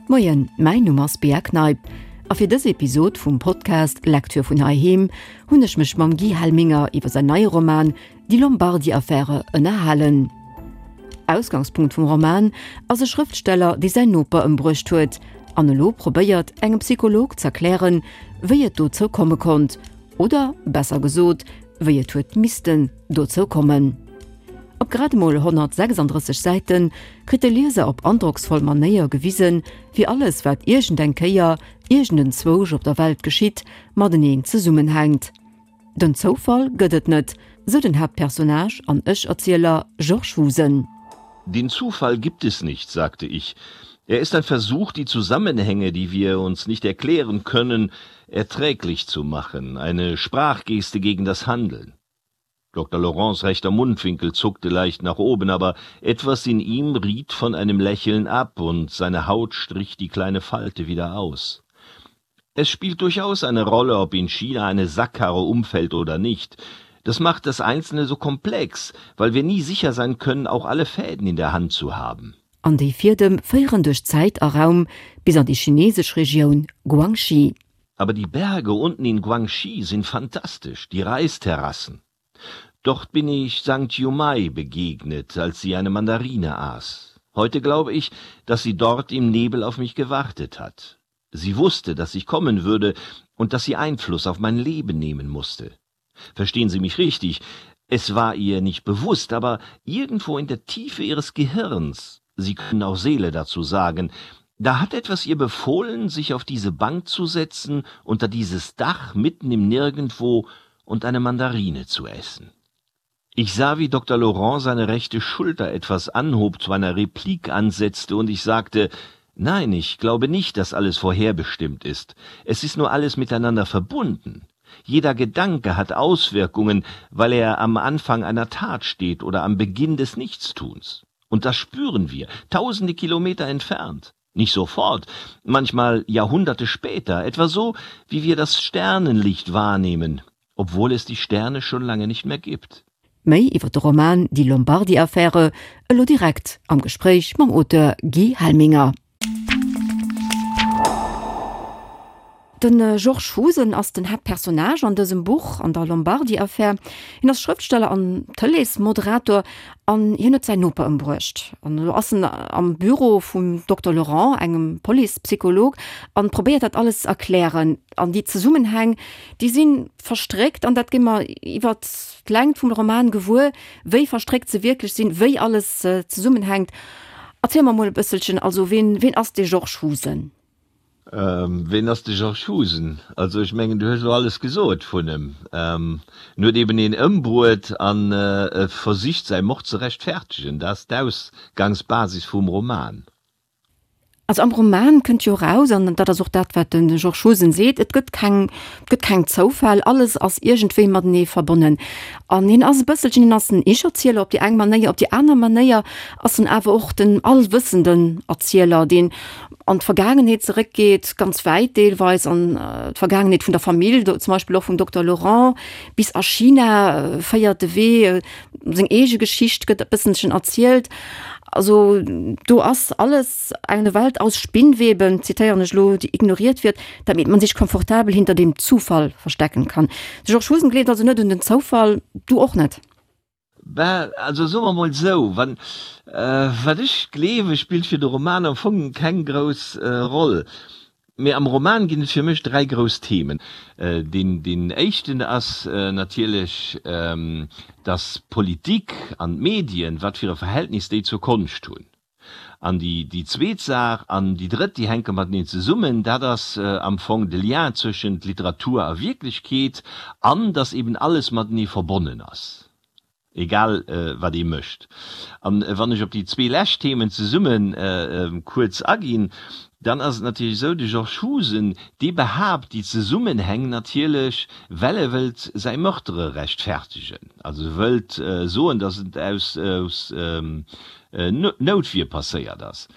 Moien, mäin Numm ass Bea Kneip a fir dës Episod vum Podcast Lecture vun heiheem hunn ech mech mam Guy Helminger iwwer säin neie Roman Die Lombardi-Affäre ënnerhalen. Ausgangspunkt vum Roman ass e Schrëftsteller, dee säin Noper ëmbruecht huet an elo probéiert, engem Psycholog z'erklären, wéi et dozou komme konnt, oder besser gesot, wéi et huet missten dozou kommen. Op grad emol 136 Säite kritt de Lieser op androcksvoll Manéier gewisen, wéi alles, wat iergend eng Kéier iergend enzwousch op der Welt geschitt, mateneen zesummenhänkt. Den Zoufall gëtt et net, sou den Haaptpersonnage an Ech-Erzieler Georges Husen. Den Zufall gibt es nicht, sagte ich. Er ist ein Versuch, die Zusammenhänge, die wir uns nicht erklären können, erträglich zu machen, eine Sprachgeste gegen das Handeln. Dr. Laurents rechter Mundwinkel zuckte leicht nach oben, aber etwas in ihm riet von einem Lächeln ab und seine Haut strich die kleine Falte wieder aus. Es spielt durchaus eine Rolle, ob in China eine Sackkarre umfällt oder nicht. Das macht das Einzelne so komplex, weil wir nie sicher sein können, auch alle Fäden in der Hand zu haben. An déi Fiedem féieren duerch Zäit a Raum bis an déi chineesesch Regioun Guangxi. Aber die Berge unten in Guangxi sind fantastisch, die Reisterrassen. Dort bin ich Sankt Yumai begegnet, als sie eine Mandarine aß. Heute glaube ich, dass sie dort im Nebel auf mich gewartet hat. Sie wusste, dass ich kommen würde und dass sie Einfluss auf mein Leben nehmen musste. Verstehen Sie mich richtig, es war ihr nicht bewusst, aber irgendwo in der Tiefe ihres Gehirns, Sie können auch Seele dazu sagen, da hat etwas ihr befohlen, sich auf diese Bank zu setzen, unter dieses Dach mitten im Nirgendwo und eine Mandarine zu essen. Ich sah, wie Dr. Laurent seine rechte Schulter etwas anhob, zu einer Replik ansetzte und ich sagte: Nein, ich glaube nicht, dass alles vorherbestimmt ist. Es ist nur alles miteinander verbunden. Jeder Gedanke hat Auswirkungen, weil er am Anfang einer Tat steht oder am Beginn des Nichtstuns. Und das spüren wir, tausende Kilometer entfernt. Nicht sofort, manchmal Jahrhunderte später, etwa so, wie wir das Sternenlicht wahrnehmen, obwohl es die Sterne schon lange nicht mehr gibt. Méi iwwer de Roman Die Lombardi-Affäre elo direkt am Gespréich mam Auteur Guy Helminger. De Georges Husen ass den Haaptpersonnage an dësem Buch, an der Lombardi-Affär. Hien ass Schrëftsteller an Tëleesmoderator an hien huet säin Noper ëmbruecht. An elo ass en am Büro vum Dokter Laurent, engem Police-Psycholog, an probéiert dat alles ze erklären. An déi Zesummenhäng, déi si verstréckt an dat gi mer iwwert d'Längt vum Roman gewuer, wéi verstréckt se wierklech sinn, wéi alles zesummenhänkt. Erziel mer mol e bësselchen, also ween, ween ass dee Georges Husen? Ween ass de Georges Husen? Also ech mengen, du hues elo alles gesot vun em. En huet eben een ëmbruet an e versicht säi Mord ze rechtfertegen. Dat ass d'Ausgangsbasis vum Roman. Also am Roman kënnt jo eraus, an dat ass och dat, wat de Georges Husen seet, et gëtt keng, et gëtt keng Zoufäll, alles ass iergendwéi matenee verbonnen. An hien ass e bësselchen, hien ass en Ich-Erzieler op déi eng Manéier, op déi aner Manéier ass en awer och den allwëssenden Erzieler, deen an d'Vergaangenheet zeréckgeet, ganz wäit deelweis an d'Vergaangenheet vun der Famill, zum Beispill och vum Dokter Laurent, bis a China féiert de Wee, seng eege Geschicht gëtt e bësselchen erzielt. Also do ass alles eine Welt aus Spinnweben, zitéieren ech elo, die ignoriert wird, damit man sich komfortabel hinter dem Zufall verstecken kann. De Georges Husen gleeft also net un den Zoufall, du och net? Ben, also soe mer mol esou, wann, wat ech gleewe spillt fir de Roman am Fong keng grouss Roll. Mee am Roman ginn et fir mech 3 grouss Themen. Deen, deen éischten ass natierlech, dass d'Politik an d'Medien, wat fir e Verhältnis déi zur Konscht hunn. An déi, déi zweet Saach an déi drëtt, déi hänke mateneen zesummen, dat ass am Fong de Lien zwëschent Literatur a Wierklechkeet an dass eben alles matenee verbonnen ass, egal wat ee mécht. An wann ech op déi zwee lescht Themen zesumme kuerz aginn, dann ass et natierlech esou, de Georges Husen, dee behaapt déi Zesummenhäng natierlech, well e wëllt säi Meurtre rechtfertegen, also e wëllt soen, dass et aus, aus Noutwier passéiert ass.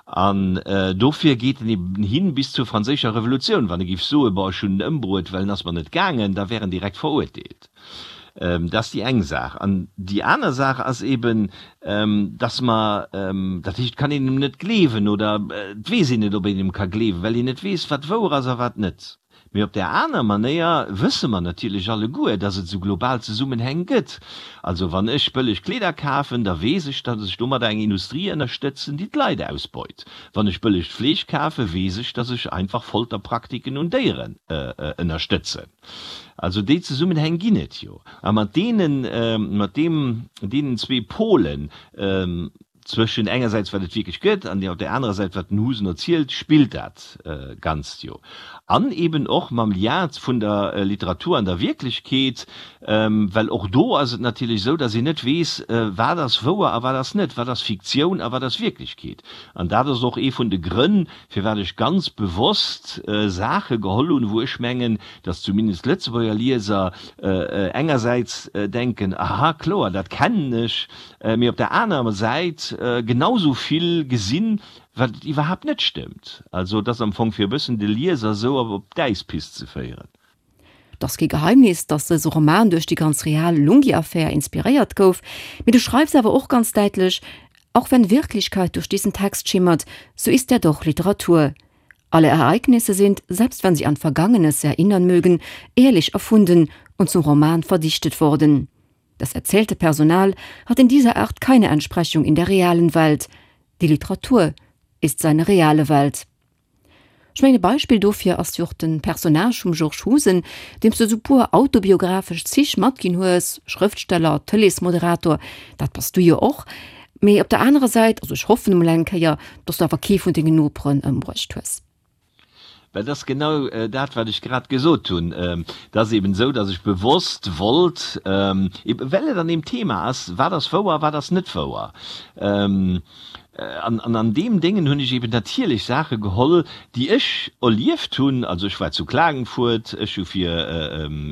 An dofir geet en eben hin bis zur franséischer Revolutioun. Wann e géif soen, bon, ech hunn en ëmbruet, well en ass mer net gaangen, da wär en direkt verurteelt. Dat ass déi eng Saach. An déi aner Saach ass eben, dass mer, dat heescht, et kann een em net gleewen oder et weess een net, ob een em ka gleewen, well een net weess, wat wouer ass a wat net. Mee op där aner Manéier wësse mer natierlech alleguer, dass et esou global Zesummenhäng gëtt. Also wann ech bëlleg Kleeder kafen, da weess ech, dass ech domadder eng Industrie ënnerstëtzen, déi d'Leit ausbeut. Wann ech bëllegt Fleesch kafen, weess ech, dass ech einfach Folterpraktiken un Déieren ënnerstëtzen. Also déi Zesummenhäng ginn et jo. A mat deenen, mat deem, deenen zwee Polen, Zwëschen engersäits wat et wierklech gëtt an op där anerer Säit wat den Husen erzielt, spillt dat Ganzt jo. An eben och mam Lien vun der Literatur an der Wierklechkeet, well och do ass et natierlech esou, datt een net weess, wat ass wouer a wat ass net, wat ass Fiktioun a wat ass Wierklechkeet. An dat ass och ee vun de Grënn, firwat ech ganz bewosst Saache geholl hunn, wou ech mengen, datt zumindest Lëtzebuerger Lieser engersäits denken, aha, kloer, dat kennen ech, mee op der anerer Säit genau sou vill gesinn, wat et iwwerhaapt net stëmmt. Also et ass am Fong fir e bëssen de Lieser sou op d'Äispist ze féieren. Et ass kee Geheimnis, datt dëse Roman duerch déi ganz real Lunghi-Affär inspiréiert gouf, mee du schreifs awer och ganz däitlech, Auch wenn Wirklichkeit durch diesen Text schimmert, so ist er doch Literatur. Alle Ereignisse sind, selbst wenn sie an Vergangenes erinnern mögen, ehrlich erfunden und zum Roman verdichtet worden. Das erzählte Personal hat in dieser Art keine Entsprechung in der realen Welt. Die Literatur ist seine reale Welt. Ech mengen e Beispill dofir ass jo och de Personnage vum Georges Husen, deem s de esou puer autobiographesch Zich matginn hues, Schrëftsteller, Tëleesmoderator, dat bass du jo och, mee op der anerer Säit, also ech hoffen emol eng Kéier, dass du awer kee vun dengen Noperen ëmbruecht hues. Well dat ass genau dat, wat ech grad gesot hunn. Et ass eben esou, datt ech bewosst wollt, eben well et an deem Thema ass, wat ass wouer, wat ass net wouer. An an deem Déngen hunn ech eben natierlech Saache geholl, déi ech erlieft hunn. Also ech war zu Klagenfurt, ech hu fir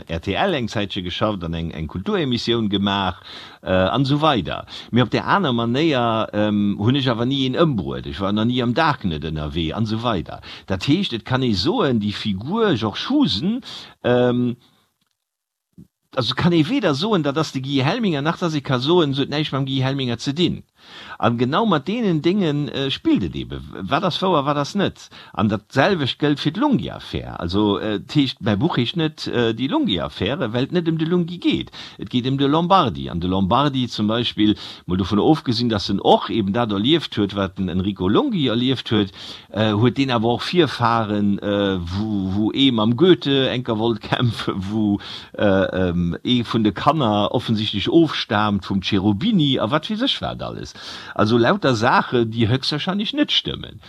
rtl eng Zäitche geschafft an eng Kulturemissioun gemaach. An esou weider. Mee op där aner Manéier hunn ech awer ni een ëmbruet, ech war nach ni am Darknet ënnerwee an esou weider. Dat heescht, et kann ee soen, déi Figur Georges Husen, also et kann ee weder soen, dat ass de Guy Helminger, nach datt ee ka soen, se huet näischt mam Guy Helminger ze dinn. An genau mat deenen Dénge spillt et eben, wat ass wouer, wat ass net. An dat selwecht gëllt fir d'Lunghi-Affär. Also et heescht, mäi Buch heescht net Die Lunghi-Affäre, well et net ëm de Lunghi geet. Et geet ëm de Lombardi. An de Lombardi zum Beispill, mol dovun ofgesinn, datt en och eben dat erlieft huet, wat den Enrico Lunghi erlieft huet, huet deen awer och Virfahren, wou ee mam Goethe enker wollt kämpfen, wou ee vun de Kanner offensichtlech ofstaamt vum Cherubini a wat weess ech wat alles. Also lauter Saachen, déi höchstwahrscheinlech net stëmmen.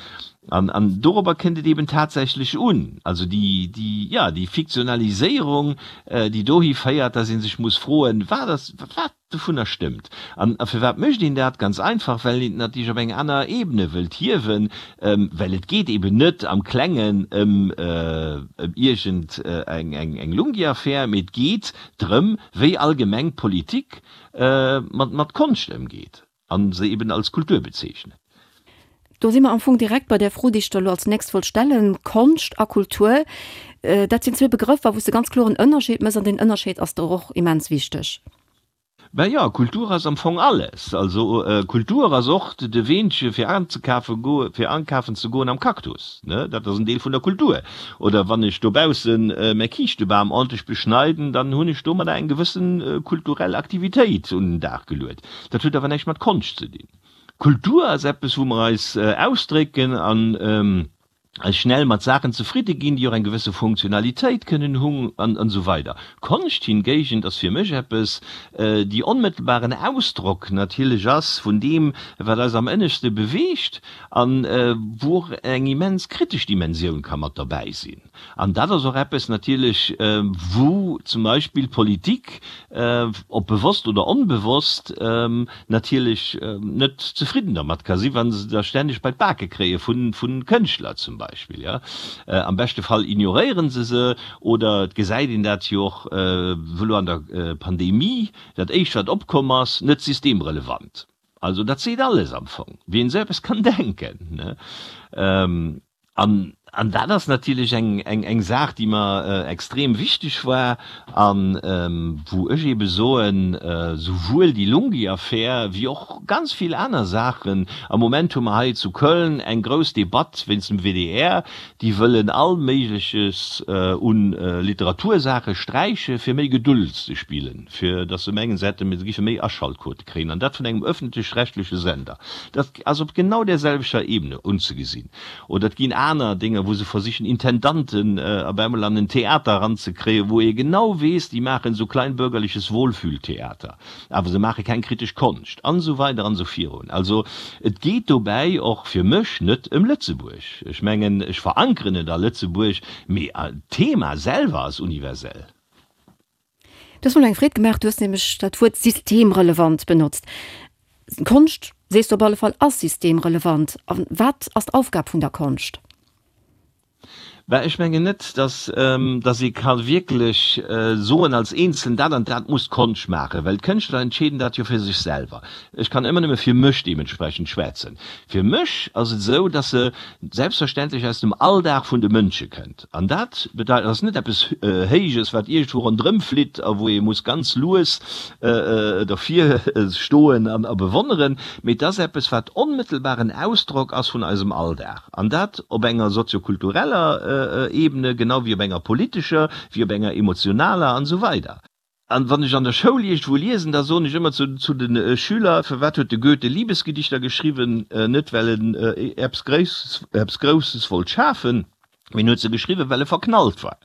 An, an dorobber kënnt et eben tatsächlech un. Also déi, déi, jo, déi Fiktionaliséierung, déi dohi féiert, dass ee sech muss froen, Wat ass, wat dovunner stëmmt? An a firwat mécht een dat? Ganz einfach, well een et natierlech op eng aner Ebene wëllt hiewen, well et geet eben net am Klengen ëm, ëm iergend eng, eng, eng Lunghi-Affär, mee et geet drëm, wéi allgemeng d'Politik mat, mat Konscht ëmgeet a se eben als Kultur bezeechnet. Do si mer am Fong direkt bei där Fro, déi ech der elo als nächst wollt stellen. Konscht a Kultur, dat sinn zwee Begrëffer, wou s de ganz kloer en Ënnerscheed méchs, an deen Ënnerscheed ass der och immens wichteg. Ben jo, Kultur ass am Fong alles. Also Kultur ass och de Weenche fir anzekafe goe, fir ankafen ze goen am Cactus, ne, dat ass en Deel vun der Kultur. Oder wann ech dobaussen mäi Kiischtebam ordentlech beschneiden, dann hunn ech domadder eng gewëssen kulturell Aktivitéit un den Dag geluet. Dat huet awer näischt mat Konscht ze dinn. Kultur ass eppes, wou mer eis ausdrécken an eis schnell mat Saachen zefridde ginn, déi och eng gewësse Funktionalitéit kënnen hunn an esou weider. Konscht hingéigent ass fir mech eppes, déi onmëttelbaren Ausdrock natierlech ass vun deem, wat eis am ënneschte beweegt an wou och eng immens kritesch Dimensioun ka mat derbäi sinn. An dat ass och eppes natierlech, wou zum Beispill d'Politik, ob bewosst oder onbewosst, natierlech net zefridden dermat ka sinn, wa se da stänneg bei d'Bake kréie vu Kënschtler zum Beispill. Am beschte Fall ignoréiere se se oder et gesäit een dat jo och elo an der Pandemie, dat éischt wat opkomm ass, net systemrelevant. Also dat seet alles am Fong, wien esou eppes kann denken. An. An dat ass natierlech eng Saach, déi mer extrem wichteg war a wou ech eebe soen, souwuel déi Lunghi-Affär wéi och ganz vill aner Saachen, am Moment hu mer hei zu Köln eng grouss Debatt wéinst dem WDR, déi wëllen all Méigleches u Literatursaache sträiche fir méi Geduld ze spillen. fir datt se mengen, se hätte, se géife méi Aschaltquote kréien, an dat vun engem öffentlech-rechtleche Sender. Dat ass op genau där selwechter Ebene unzegesinn. Oder et ginn aner Dénger, wou se versichen, Intendanten op eemol an en Theater eranzekréien, wou ee genau weess, déi maachen esou kleinbürgerliches Wohlfühltheater, awer se maache keng kritesch Konscht, an esou weider an esou virun. Also et geet dobäi och fir mech net ëm Lëtzebuerg. Ech mengen, ech verankeren et a Lëtzebuerg, mee d'Thema selwer ass universell. Du hues mer elo eng Freed gemaach, du hues nämlech dat Wuert systemrelevant benotzt. Konscht, sees du op alle Fall, ass systemrelevant. A wat ass d'Aufgab vun der Konscht? Bah, ech mengen net, dass, dass ee ka wierklech soen als Eenzelen, dat an dat muss d'Konscht maachen, well d'Kënschtler entscheeden dat jo fir sech selwer. Ech kann ëmmer nëmme fir mech deementsprechend schwätzen. Fir mech ass et esou, dass se selbstverständlech aus dem Alldag vun de Mënsche kënnt. An dat bedeit, ass net eppes Héijes, wat iergendwou ronderëm flitt a wou ee muss ganz lues dervir stoen an a bewonneren, mee et ass eppes, wat onmëttelbaren Ausdrock ass vun eisem Alldag. An dat op enger soziokultureller Ebene, genau wéi op enger politescher, wéi op enger emotionaler an esou weider. An wann ech an der Schoul iergendwou liesen, da soen ech ëmmer zu zu de Schüler, Firwat huet de Goethe Liebesgedichter geschriwwen? Net well en eppes Grouss eppes Grousses wollt schafen, mee en huet se geschriwwen, well e verknallt war.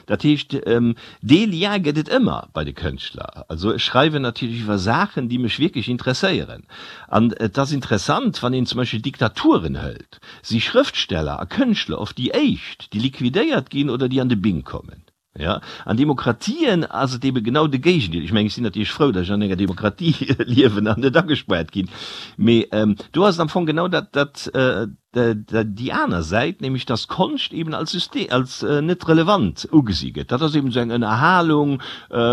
Dat heescht, dee Lien gëtt et ëmmer bei de Kënschtler. Also ech schreiwen natierlech iwwer Saachen, déi mech wierklech interesséieren. An et ass interessant, wann een zum Beispill Diktaturen hëlt, si Schrëftsteller a Kënschtler oft déi éischt, déi liquidéiert ginn oder déi an de Bing kommen. Jo, an Demokratien ass et ebe genau de Géigendeel. Ech mengen, ech sinn natierlech frou, datt ech an enger Demokratie liewen an net agespaart ginn. Mee do ass et am Fong genau dat, dat, déi aner Säit, nämlech datt Konscht eben als System, als net relevant ugesi gëtt. Dat ass eben esou eng Ënnerhalung,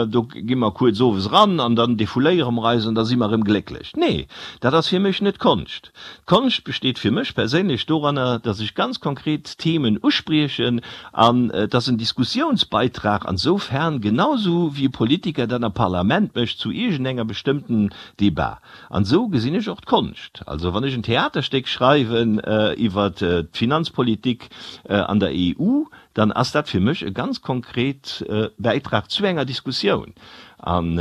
do gi mer kuerz owes eran an dann defouléiere mer eis an da si mer erëm glécklech. Nee, dat ass fir mech net Konscht. D'Konscht besteet fir mech perséinlech doranner, datt ech ganz konkret Themen uspriechen an et ass en Diskussiounsbeitrag ansoufern, genau sou wéi e Politiker dat am Parlament mécht zu iergendenger bestëmmten Debat. An esou gesinn ech och d'Konscht. Also wann ech en Theaterstéck schreiwen iwwer d'Finanzpolitik an der EU, dann ass dat fir mech e ganz konkret Bäitrag zu enger Diskussioun. An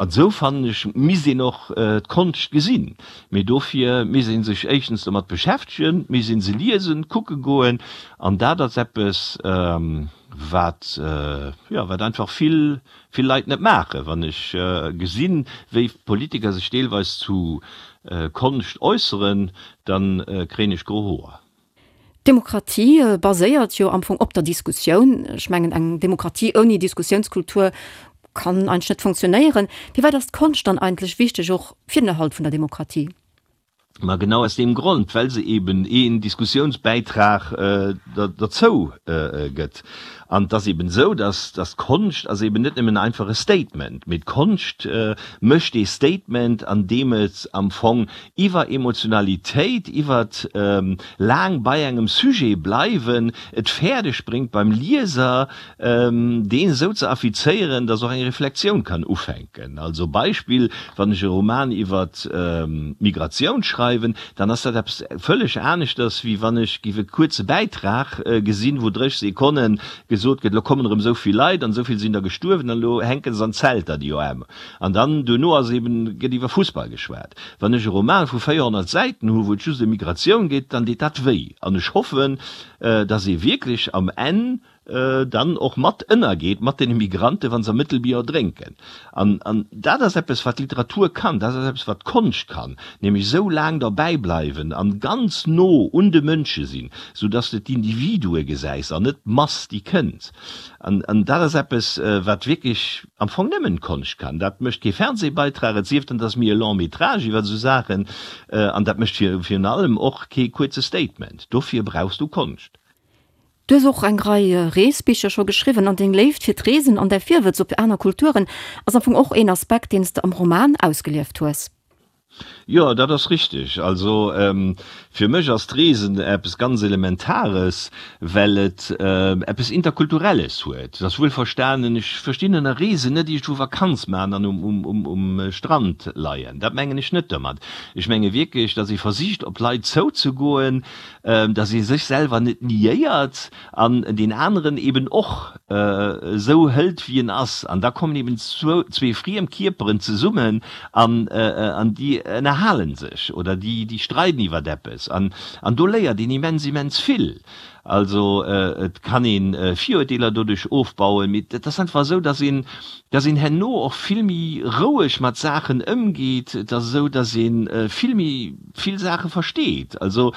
esou, fannen ech, misst een och d'Konscht gesinn. Mee dofir misst ee sech éischtens domat beschäftegen, misst ee se liesen, kucke goen. An dat ass eppes, wat, jo, wat einfach vill, vill Leit net maachen. Wann ech gesinn, wéi Politiker sech deelweis zu Konscht äusseren, da kréien ech gro Hoer. D'Demokratie baséiert jo am Fong op der Diskussioun. Ech mengen, eng Demokratie ouni Diskussiounskultur kann eigentlech net funktionéieren. Firwat ass d'Konscht dann eigentlech wichteg och fir den Erhalt vun der Demokratie? Ma genau aus deem Grond, well se eben een Diskussiounsbäitrag derzou gëtt. An et ass eben esou, dass d'Konscht ass eben net nëmmen einfach e Statement, mee d'Konscht mécht ee Statement, an deem et am Fong iwwer Emotionalitéit, iwwer laang bei engem Sujet bleiwen, et fäerdeg bréngt beim Lieser, deen esou ze affizéieren, dass och eng Reflexioun kann ufänken. Also Beispill, wann ech e Roman iwwer d'Migratioun schreiwen, dann ass dat eppes vëlleg aneschters, wéi wann ech géif e kuerze Bäitrag gesinn, wou 30 Sekonne gesot gëtt, elo kommen erëm esou vill Leit an esou vill sinn der gestuerwen an elo hänke se an Zelter, déi OM. An dann duerno ass eben, gëtt iwwer Fussball geschwat. Wann ech e Roman vu 400 Säiten hu wou et just ëm Migratioun geet, dann deet dat wéi. An ech hoffen, dass ee wierklech am Enn dann och mat ënnergeet mat deene Migrante wa se am Mëttelbier erdrénken. An an dat ass eppes wat d'Literatur kann, dat ass eppes wat d'Konscht kann, nämlech esou laang derbäi bleiwen an ganz no un de Mënsche sinn, sou dass de d'Individue gesäis an net d'Mass déi kënnt. An an dat ass eppes wat wierklech am Fong nëmmen d'Konscht kann. Dat mécht kee Fernsehbeitrag, et sief dann, et ass méi e Long métrage iwwer esou Saachen, an dat mécht virun allem och kee kuerze Statement. Dofir brauchs du Konscht. Du hues och eng Rei Reesbicher scho geschriwwen an deng Léift fir d'Reesen an däi Virwëtz op aner Kulturen ass am Fong och een Aspekt, deen s de am Roman ausgelieft hues. Jo, dat ass richteg. Also fir mech ass d'Reesen eppes ganz Elementares, well et eppes Interkulturelles huet. Et ass wuelverstanen, ech verstinn ënner Reesen net iergendwou Vakanz maachen an um Strand leien. Dat mengen ech net domat. Ech menge wierklech, datt ee versicht op d'Leit zouzegoen, datt ee sech selwer net niéiert an deen aneren eben och esou hëlt wéi en ass, an da kommen eben zwee friem Kierperen zesummen an an déi ënnerhalen sech oder déi déi streiden iwwert eppes an an do léiert een immens immens vill. Also et kann een Virurteeler doduerch ofbauen, mee et ass einfach esou, dass een dass een herno och vill méi roueg mat Saachen ëmgeet, et ass esou, dass een vill méi vill Saache versteet. Also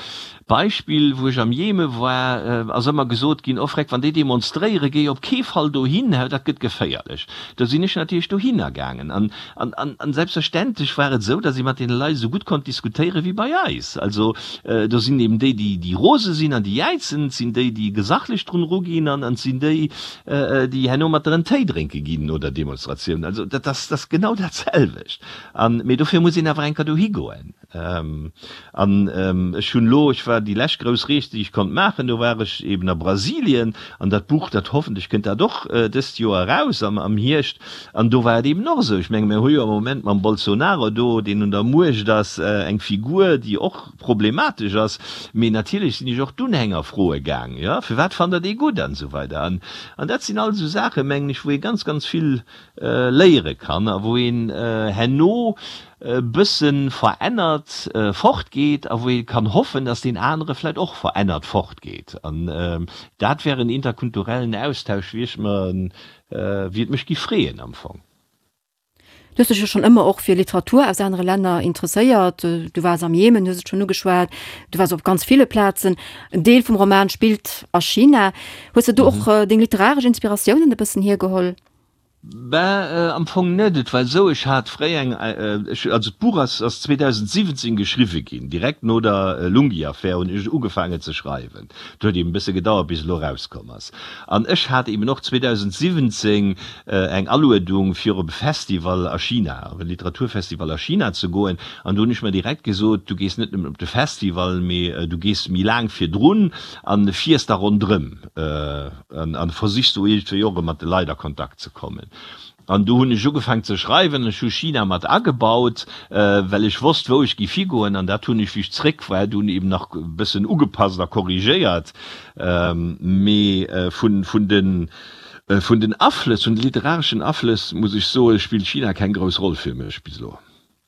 Beispill, wou ech am Jeme war, ass ëmmer gesot ginn, Oh Freck, wann déi demonstréieren, géi op kee Fall dohin, dat gëtt geféierlech. Do sinn ech natierlech dohinner gaangen. An, an, an selbstverständlech war et esou, datt ee mat deene Leit esou gutt konnt diskutéiere wéi bei eis. Also do sinn eben déi, déi, déi rose sinn an déi jäizen, et sinn déi, déi gesachlech drun eruginn an et sinn déi, déi herno mat der en Téi drénke ginn no der Demonstratioun. Also dat ass, dat ass genau dat selwecht. An, mee dofir muss een awer eng Kéier dohi goen. An ech hunn elo, ech war déi lescht grouss Rees, déi ech konnt maachen, do war ech eben a Brasilien, an dat Buch, dat hoffentlech kënnt dat och dëst Joer eraus am Hierscht, an do war et eben och esou, ech menge mir hu jo am Moment mam Bolsonaro do, deen un der Muecht ass, eng Figur, déi och problematesch ass, mee natierlech sinn ech och d'Unhänger froe gaang, jo, firwat fannt der dee gutt an esou weider. An dat sinn all esou Saachen, mengen ech, wou ee ganz, ganz vill léiere kann a wou een herno e bësse verännert fortgeet a wou ee kann hoffen, datt deen anere vläicht och verännert fortgeet. An dat wär en interkulturellen Austausch, wéi ech mer, wéi et mech giff freeën am Fong. Du hues dech jo schonn ëmmer och fir Literatur aus anere Länner interesséiert. Du waars am Jemen, hues et schonn ugeschwat, du waars op ganz ville Plazen. En Deel vum Roman spillt a China. Hues de do och deng literaresch Inspiratiounen e bëssen hiergeholl? Ben, am Fong net. Et war esou, ech hat fréi eng, ech, also d'Buch ass, ass 2017 geschriwwe ginn, direkt no der Lunghi-Affär hunn ech ugefaangen ze schreiwen. Et huet eben e bësse gedauert, bis et elo erauskomm ass. An ech hat eben och 2017 eng Aluedung, fir op e Festival a China, op e Literaturfestival a China ze goen. An do hunn ech mer direkt gesot, du gees net nëmmen op de Festival, mee du gees méi laang virdrun an fiers da ronderëm. An versichs do iergendwéi och erëm mat de Leit a Kontakt ze kommen. An do hunn ech ugefaang ze schreiwen. Ech hu China mat agebaut, well ech wosst, wou ech giff higoen. An dat hunn ech, wéi ech zréck war, dunn eben nach e bëssen ugepasst a korrigéiert. Mee vun, vun den, vun den Aflëss, vun de literareschen Aflëss, muss ech soen, spillt China keng grouss Roll fir mech bis elo.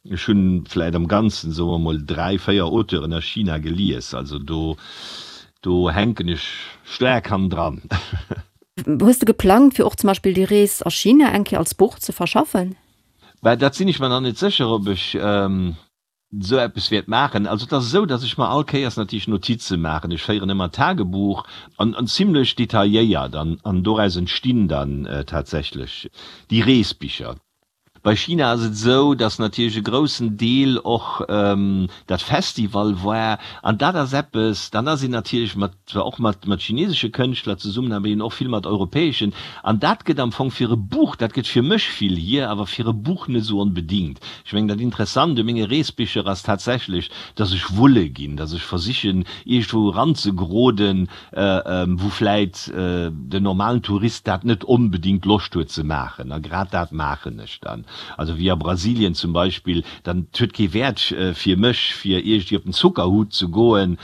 Ech hunn vläit am Ganzen, soe mer mol, 3, 4 Auteuren a China gelies, also do, do hänken ech staark hannendran. Hues de geplangt, fir och zum Beispill déi Rees a China eng Kéier als Buch ze verschaffen? Bah, dat sinn ech mer nach net sécher, ob ech esou eppes wäert maachen. Also et ass esou, datt ech mer all Kéiers natierlech Notize maachen. Ech féieren ëmmer Tagebuch an, an zimlech detailléiert, an, an doraus entstinn dann tatsächlech déi Reesbicher. Bei China ass et esou, datt natierlech e groussen Deel och dat Festival war an dat ass eppes, dann ass een natierlech mat, zwar och mat mat chinesesche Kënschtler zesummen, awer eben och vill mat europäeschen an dat gëtt am Fong fir e Buch, dat gëtt fir mech vill hier, awer fir e Buch net esou onbedingt. Ech mengen dat Interessant u menge Reesbicher ass tatsächlech, datt ech wulle ginn, datt ech versichen iergendwou eranzegeroden, wou vläit den normalen Tourist dat net onbedingt Loscht huet ze maachen. A grad dat maachen ech dann. Also wéi a Brasilien zum Beispill, dann, et huet kee Wäert fir mech, fir iergendwéi op den Zuckerhut ze goen,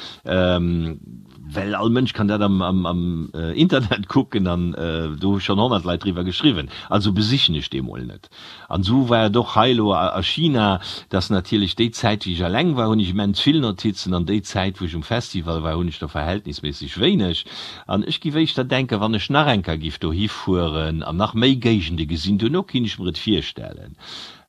well all Mënsch kann dat am Internet kucken an do hu schonn 100 Leit driwwer geschriwwen. Also besichen ech dee mol net. An esou war et och hei elo a China, dass natierlech déi Zäit, wéi ech eleng war, hunn ech immens vill Notizen, an déi Zäit, wou ech um Festival war, hunn ech der verhältnisméisseg wéineg. An ech giff éischter denken, wann ech nach eng Kéier giff dohi fueren an nach méi Géigende gesinn, duerno kinnt ech mer et virstellen.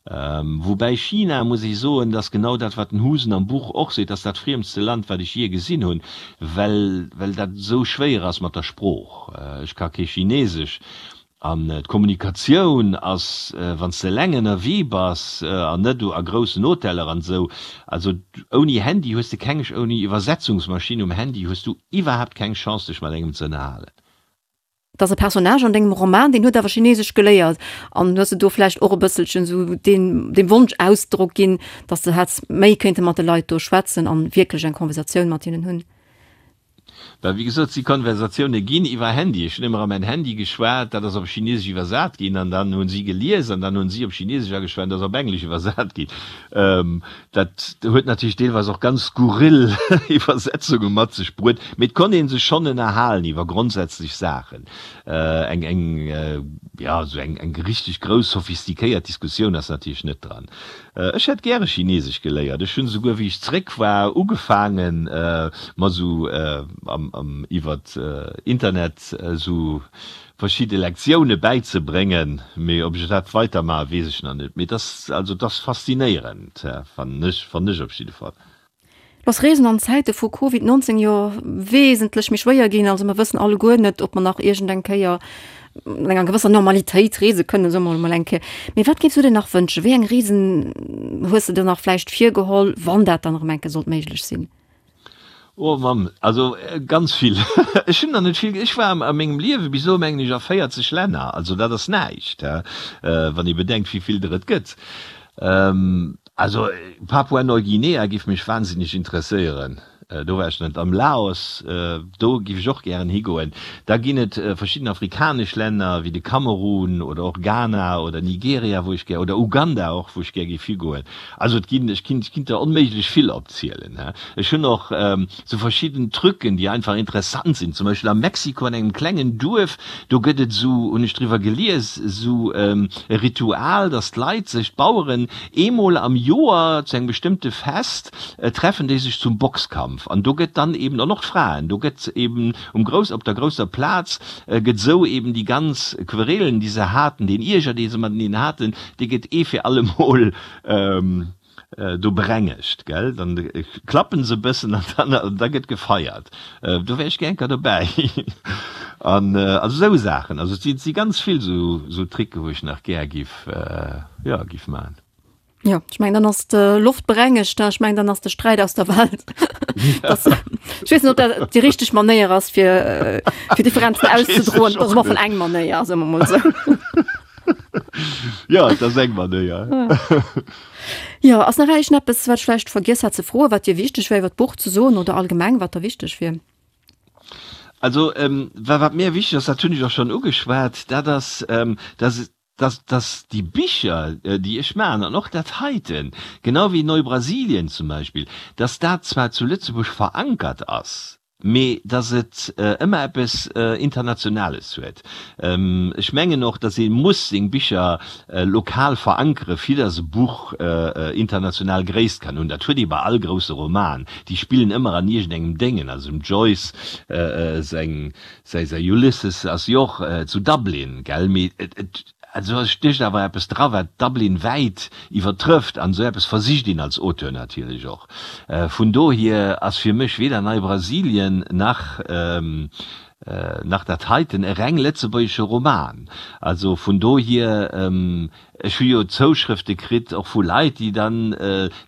Woubäi China, muss ech soen, dass genau dat, wat den Husen am Buch och seet, ass dat friemste Land, wat ech jee gesinn hunn, well well dat esou schwéier ass mat der Sprooch. Ech ka kee Chinesesch. An d'Kommunikatioun ass, wann s de eleng ënnerwee bass an net a groussen Hoteller an esou, also ouni Handy hues de keng, ouni Iwwersetzungsmaschinn um Handy hues du iwwerhaapt keng Chance dech mat engem ze ënnerhalen. Et ass e Personnage an dengem Roman, deen huet awer Chinesesch geléiert. An hues de do vläicht och e bësselchen esou deen, deem Wonsch Ausdrock ginn, datt de hätts méi kéinte mat de Leit do schwätzen an wierklech eng Konversatioun mat hinnen hunn? Well wéi gesot, si Konversatioune ginn iwwer Handy. Ech hunn ëmmer a mäin Handy geschwat, dat ass op Chinesesch iwwersat ginn an dann hunn si gelies an dann hunn si op Chinesesch ageschwat an dat ass op Englesch iwwersat ginn. Dat huet natierlech deelweis och ganz skurril Iwwersetzunge mat sech bruet, mee et konnt ee sech schonn ënnerhalen iwwer grondsätzlech Saachen. Eng, eng, jo, esou eng, eng richteg grouss sophistiquéiert Diskussioun ass natierlech net dran. Ech hätt gäre Chinesesch geléiert. Ech hunn esouguer, wéi ech zréck war, ugefaangen, mer esou iwwert Internet esou verschidde Lektioune bäizebréngen. Mee ob ech dat weidermaachen, weess ech nach net. Mee et ass, also et ass faszinéierend, fannen ech, fannen ech op jidde Fall. Lo ass Reesen an Zäite vu Covid 19 jo wesentlech méi schwéier ginn. Also mer wëssen alleguer net, ob mer nach iergend eng Kéier an enger gewësser Normalitéit reese kënnen, soe mer emol eng Kéier. Mee wat géifs du dir nach wënschen? Wéi eng Reesen hues de dir nach vläicht virgeholl, wann dat dann erëm eng Kéier sollt méiglech sinn? Oh Mamm, also ganz vill. Ech hunn der net vill. Ech war a mengem Liewe bis elo, mengen ech, a 40 Länner. Also dat ass näischt, wann ee bedenkt, wéi vill der et gëtt. Also Papua-Neuguinea giff mech wahnsinneg interesséieren, do war ech net. Am Laos, do giff ech och gären higoen. Da ginn et verschidden afrikanesch Länner wéi de Kamerun oder och Ghana oder Nigeria wou ech gär, oder Uganda och, wou ech gär giff higoen. Also et ginn, ech kinnt, ech kinnt der onméiglech vill opzielen. Ech hunn och sou verschidden Trucken, déi einfach interessant sinn. Zum Beispill a Mexiko an engem klengen Duerf, do gëtt et esou, hunn ech driwwer gelies, esou e Ritual, datt d'Leit sech, d'Baueren, eemol am Joer zu engem bestëmmte Fest treffen déi sech zum Boxkampf. An do gëtt dann eben, an och d'Fraen, do gëtt eben um grouss, op der grousser Plaz gëtt esou eben déi ganz Querelen, déi se haten, deen Ierger, dee se mateneen haten, dee gëtt ee fir allemol do berengegt, gell, dann klappen se e bëssen an dann da gëtt gefeiert. Do wär ech gär enker dobäi. An also esou Saachen, also et si si ganz vill esou esou Tricke wou ech nach gär giff jo giff man. Jo, ech mengen dann ass d'Loft berengegt, ech mengen dann ass de Sträit aus der Welt. Das, ech weess net ob dat déi richteg Manéier ass fir fir Differenzen auszedroen, dat ass emol eng Manéier, soe mer mol esou. Jo, et ass eng Manéier. Jo, ass nach iergendeppes, wat ech vläicht vergiess hat ze froen, wat dir wichteg wär iwwer d'Buch ze soen oder allgemeng, wat der wichteg wier? Also, wa wat mir wichteg ass, dat hunn ech och schonn ugeschwat, dat ass, dass, dass, dass déi Bicher, déi ech maachen, an och dat heiten, genau wéi Neubrasilien zum Beispill, dass dat zwar zu Lëtzebuerg verankert ass, mee dass et ëmmer eppes Internationales huet. Ech mengen och, dass ee muss seng Bicher lokal verankere fir dass e Buch international Gréisst kann hunn. Dat huet ee bei all grousse Roman, déi spillen ëmmer an iergendengem Déngen. Also dem Joyce säi säi Ulysses ass jo och zu Dublin, gell, mee et Also et stécht awer eppes dra wat Dublin wäit iwwertrëfft, an esou eppes versicht een als Auteur natierlech och. Vun dohier ass fir mech weder Nei-Brasilien nach nach dat heiten e reng lëtzebuergesche Roman. Also vun dohier, ech hu jo Zouschrëfte kritt och vu Leit déi dann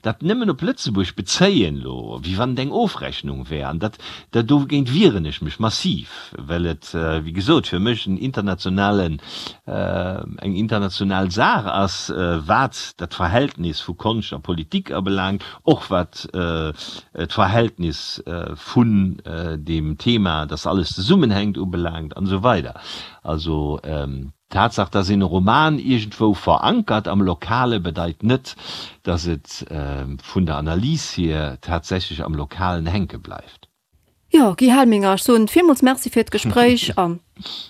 dat nëmmen op Lëtzebuerg bezéien elo, wéi wann et eng Ofrechnung wär, an dat dogéint wieren ech mech massiv, well et wéi gesot fir mech en internationalen, eng international Saach ass, wat dat Verhältnis vu Konscht a Politik abelaangt, och wat d'Verhältnis vun deem Thema, dass alles zesummenhänkt, ubelaangt an esou weider. Also d'Tatsaach, dass een e Roman iergendwou verankert am Lokale, bedeit net, dass et vun der Analys hier tatsächlech am Lokalen hänke bleift. Jo, Guy Helminger, ech soen villmools Merci fir d'Gespréich a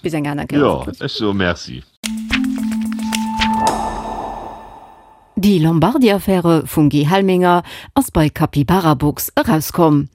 bis eng aner Kéier. Jo, ech soe Merci. Die Lombardi-Affäre vum Guy Helminger ass bei Capybarabooks erauskomm.